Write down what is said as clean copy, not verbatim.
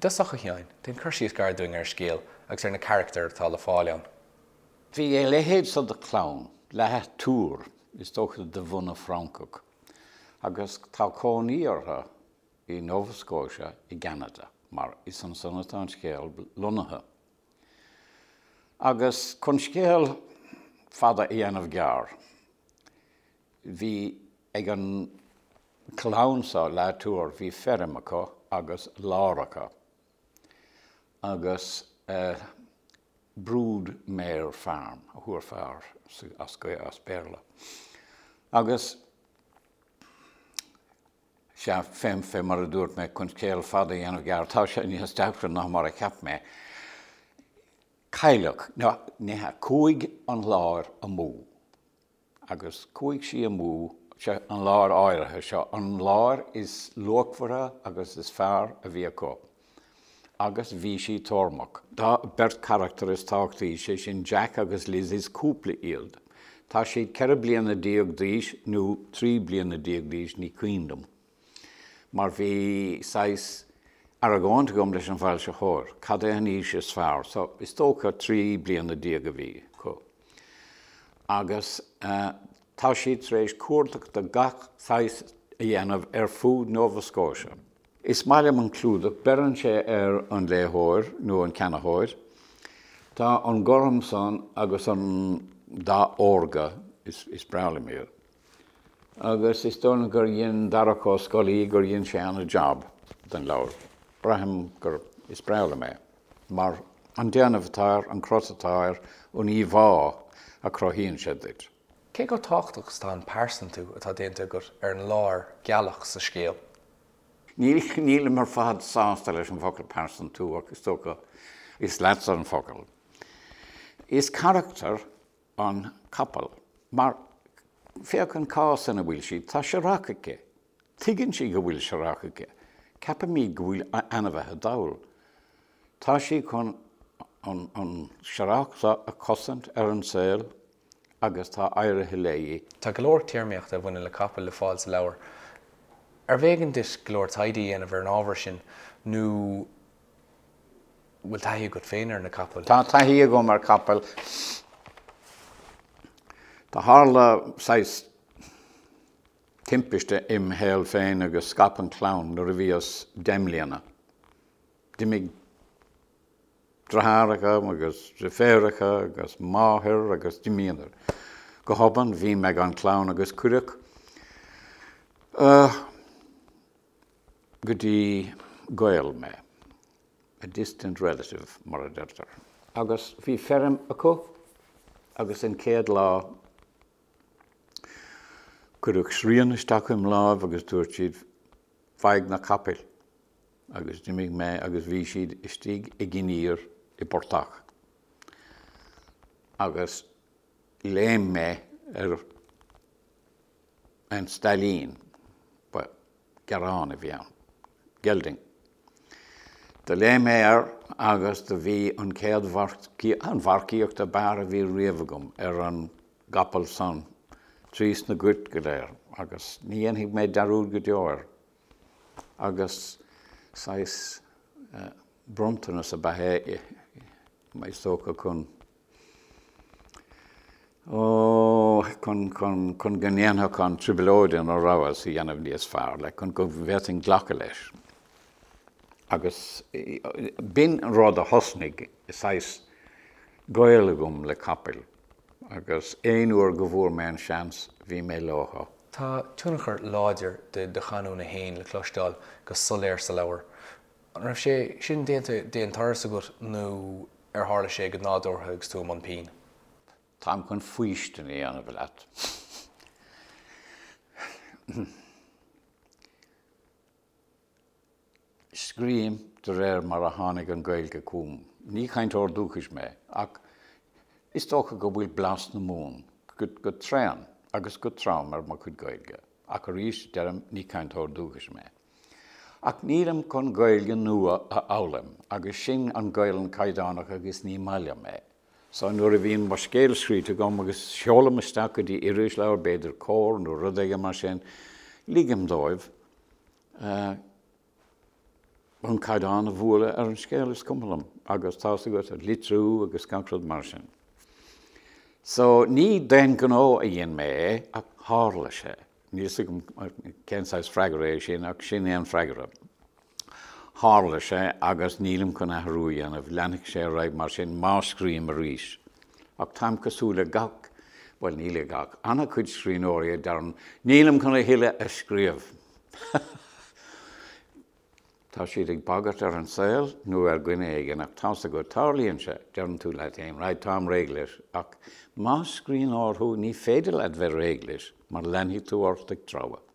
I dtosach, a Sheáin, déan cur síos gairid dúinn ar an scéal agus ar na carachtair atá le fáil ann. Bhí a leithéid so de chlann, La Tour, is dócha de bhunadh Francach, agus tá cónaí orthu i Nova Scotia i gCeanada, mar is ansan atá an scéal lonnaithe. Agus chun scéal fada a dhéanamh gearr, bhí ag an chlann so, La Tour, bhí feirm acu agus láir acu, agus brood mare farm a thabharfá air as Béarla. Agus sea, fé, fé mar a dúirt mé, chun scéal fada a dhéanamh gearr, tá sé níos deacra ná mar a cheap mé. Cailleadh, nó ní hea, chuaigh an láir amú. Agus chuaigh sí amú, sea, an láir áirithe seo, an láir is luachmhaire agus is fearr a bhí acu. Agus bhí sí tórmach. Tá beirt charachtar is tábhachtaí, sé sin Jack agus Liz, is cúpla iad. Tá siad 14 bliana d'aois nó 13 bliana d'aois, ní cuimhin liom. Mar bhí saghas argóint agam leis an bhfoilsitheoir, cad é an aois is fearr? So, is dócha 13 bliana a bhí acu. Agus tá siad tar éis cuardach de gach saghas a dhéanamh ar fud Nova Scotia. Is maith liom an clúdach, beireann sé ar an léitheoir nó an ceannaitheoir. Tá an gorm san agus an dath órga, is breá liom iad. Agus is dóigh liom gur dhein Darach Ó Scolaí, gur dhein sé ana-jab den leabhar. Braithim gur, is breá liom é. Mar an déanamh atá air, an crot atá air, an íomhá a chruthaíonn sé duit. Cé chomh tábhachtach is atá an pearsantú atá déanta agat ar an láir gealach sa scéal? Nílim ar fad sásta leis an bhfocal pearsantú ach is dócha is leatsa an focal. Is carachtar an capall mar féach an cás ina bhfuil sí, tá searrach aici. Tuigeann sí go bhfuil searrach aici. Ceapaimid go bhfuil ainmhithe dall. Tá sí chun an searrach seo a chosaint ar an saol agus tá éirithe léi. Tá go leor téarmaíochta a bhaineann le capaill le fáil sa leabhar. Arbh éigean duit go leor taighde a dhéanamh ar an ábhar sin nó bhfuil taithí agat féin ar na capaill? Tá taithí agam ar capaill. Do tharla saghas timpiste im shaol féin agus scaip an chlann nuair a bhíos 10 mbliana. D'imigh deartháireacha agus deirfiúracha agus máthair agus d'imíodar. Go hobann bhí mé gan clann agus cuireadh go dtí gaol mé, a distant relative mar a deirtear. Agus bhí feirm acu agus an chéad lá cuireadh srian isteach im láimh agus dúirt siad faigh na capaill. agus d'imigh mé agus bhí siad istigh ag iníor i bportach agus léim mé ar an stailín, ba gearrán a bhí ann, gelding. Do léim mé air agus do bhí an chéad an mharcaíocht ab fhearr a bhí riamh agam ar an gcapall san trí sna goirt go léir agus ní dhéanfaidh mé dearúd go deo air. Agus saghas bronntanas ab ea é, is dócha, chun, ó, chun, chun, chun go ndéanfadh an trioblóid ina rabhas a dhéanamh níos fearr, like, chun go bhféadfainn glacadh leis. Agus b'in an rud a thosnaigh saghas gaol agam le capaill. Agus aon uair go bhfuair mé an seans, bhí mé leothu. Tá tionchar láidir de do chanúint féin le cloisteáil go soiléir sa leabhar. An raibh sé sin déanta d'aon turas agat nó ar tharla sé go nádúrtha agus tú i mbun pinn? Táim chun faoistin a dhéanamh leat. Scríobhaim de réir mar a tháinig an Ghaeilge chugam. Ní cainteoir dúchais mé, ach is dócha go bhfuil blas na Mumhan go tréan agus go trom ar mo chuid Gaeilge. Ach arís, deirim, ní cainteoir dúchais mé. Ach nílim chun Gaeilge nua a fhoghlaim, agus sin an Ghaelainn chaighdeánach agus ní maith liom é. So nuair a bhíonn mo scéal scríte agam agus seolaim isteach go dtí irisleabhar, b'fhéidir Comhar nó rud éigin mar sin, ligim dóibh. An caighdeán a bhualadh ar an scéal, is cuma liom, agus tá's agat, an litriú agus gach rud mar sin. So, ní d'aon ghnó a dhein mé é, ach tharla sé. Níl 'fhios agam cén saghas freagra é sin, ach sin é an freagra. Tharla sé agus nílim chun athrú a dhéanamh, leanfaidh sé ar aghaidh mar sin má scríobhaim arís. Ach táim cosúil le gach, bhuel ní le gach, an-chuid scríbhneoirí a deireann 'nílim chun a thuilleadh a scríobh'. Tá siad ag bagairt ar an saol nó ar dhuine éigin ach tá's agat, tarlaíonn sé, deireann tú leat féin 'right, táim réidh leis' ach más scríbhneoir thú ní féidir leat bheith réidh leis mar leanfaidh tú ort ag treabhadh.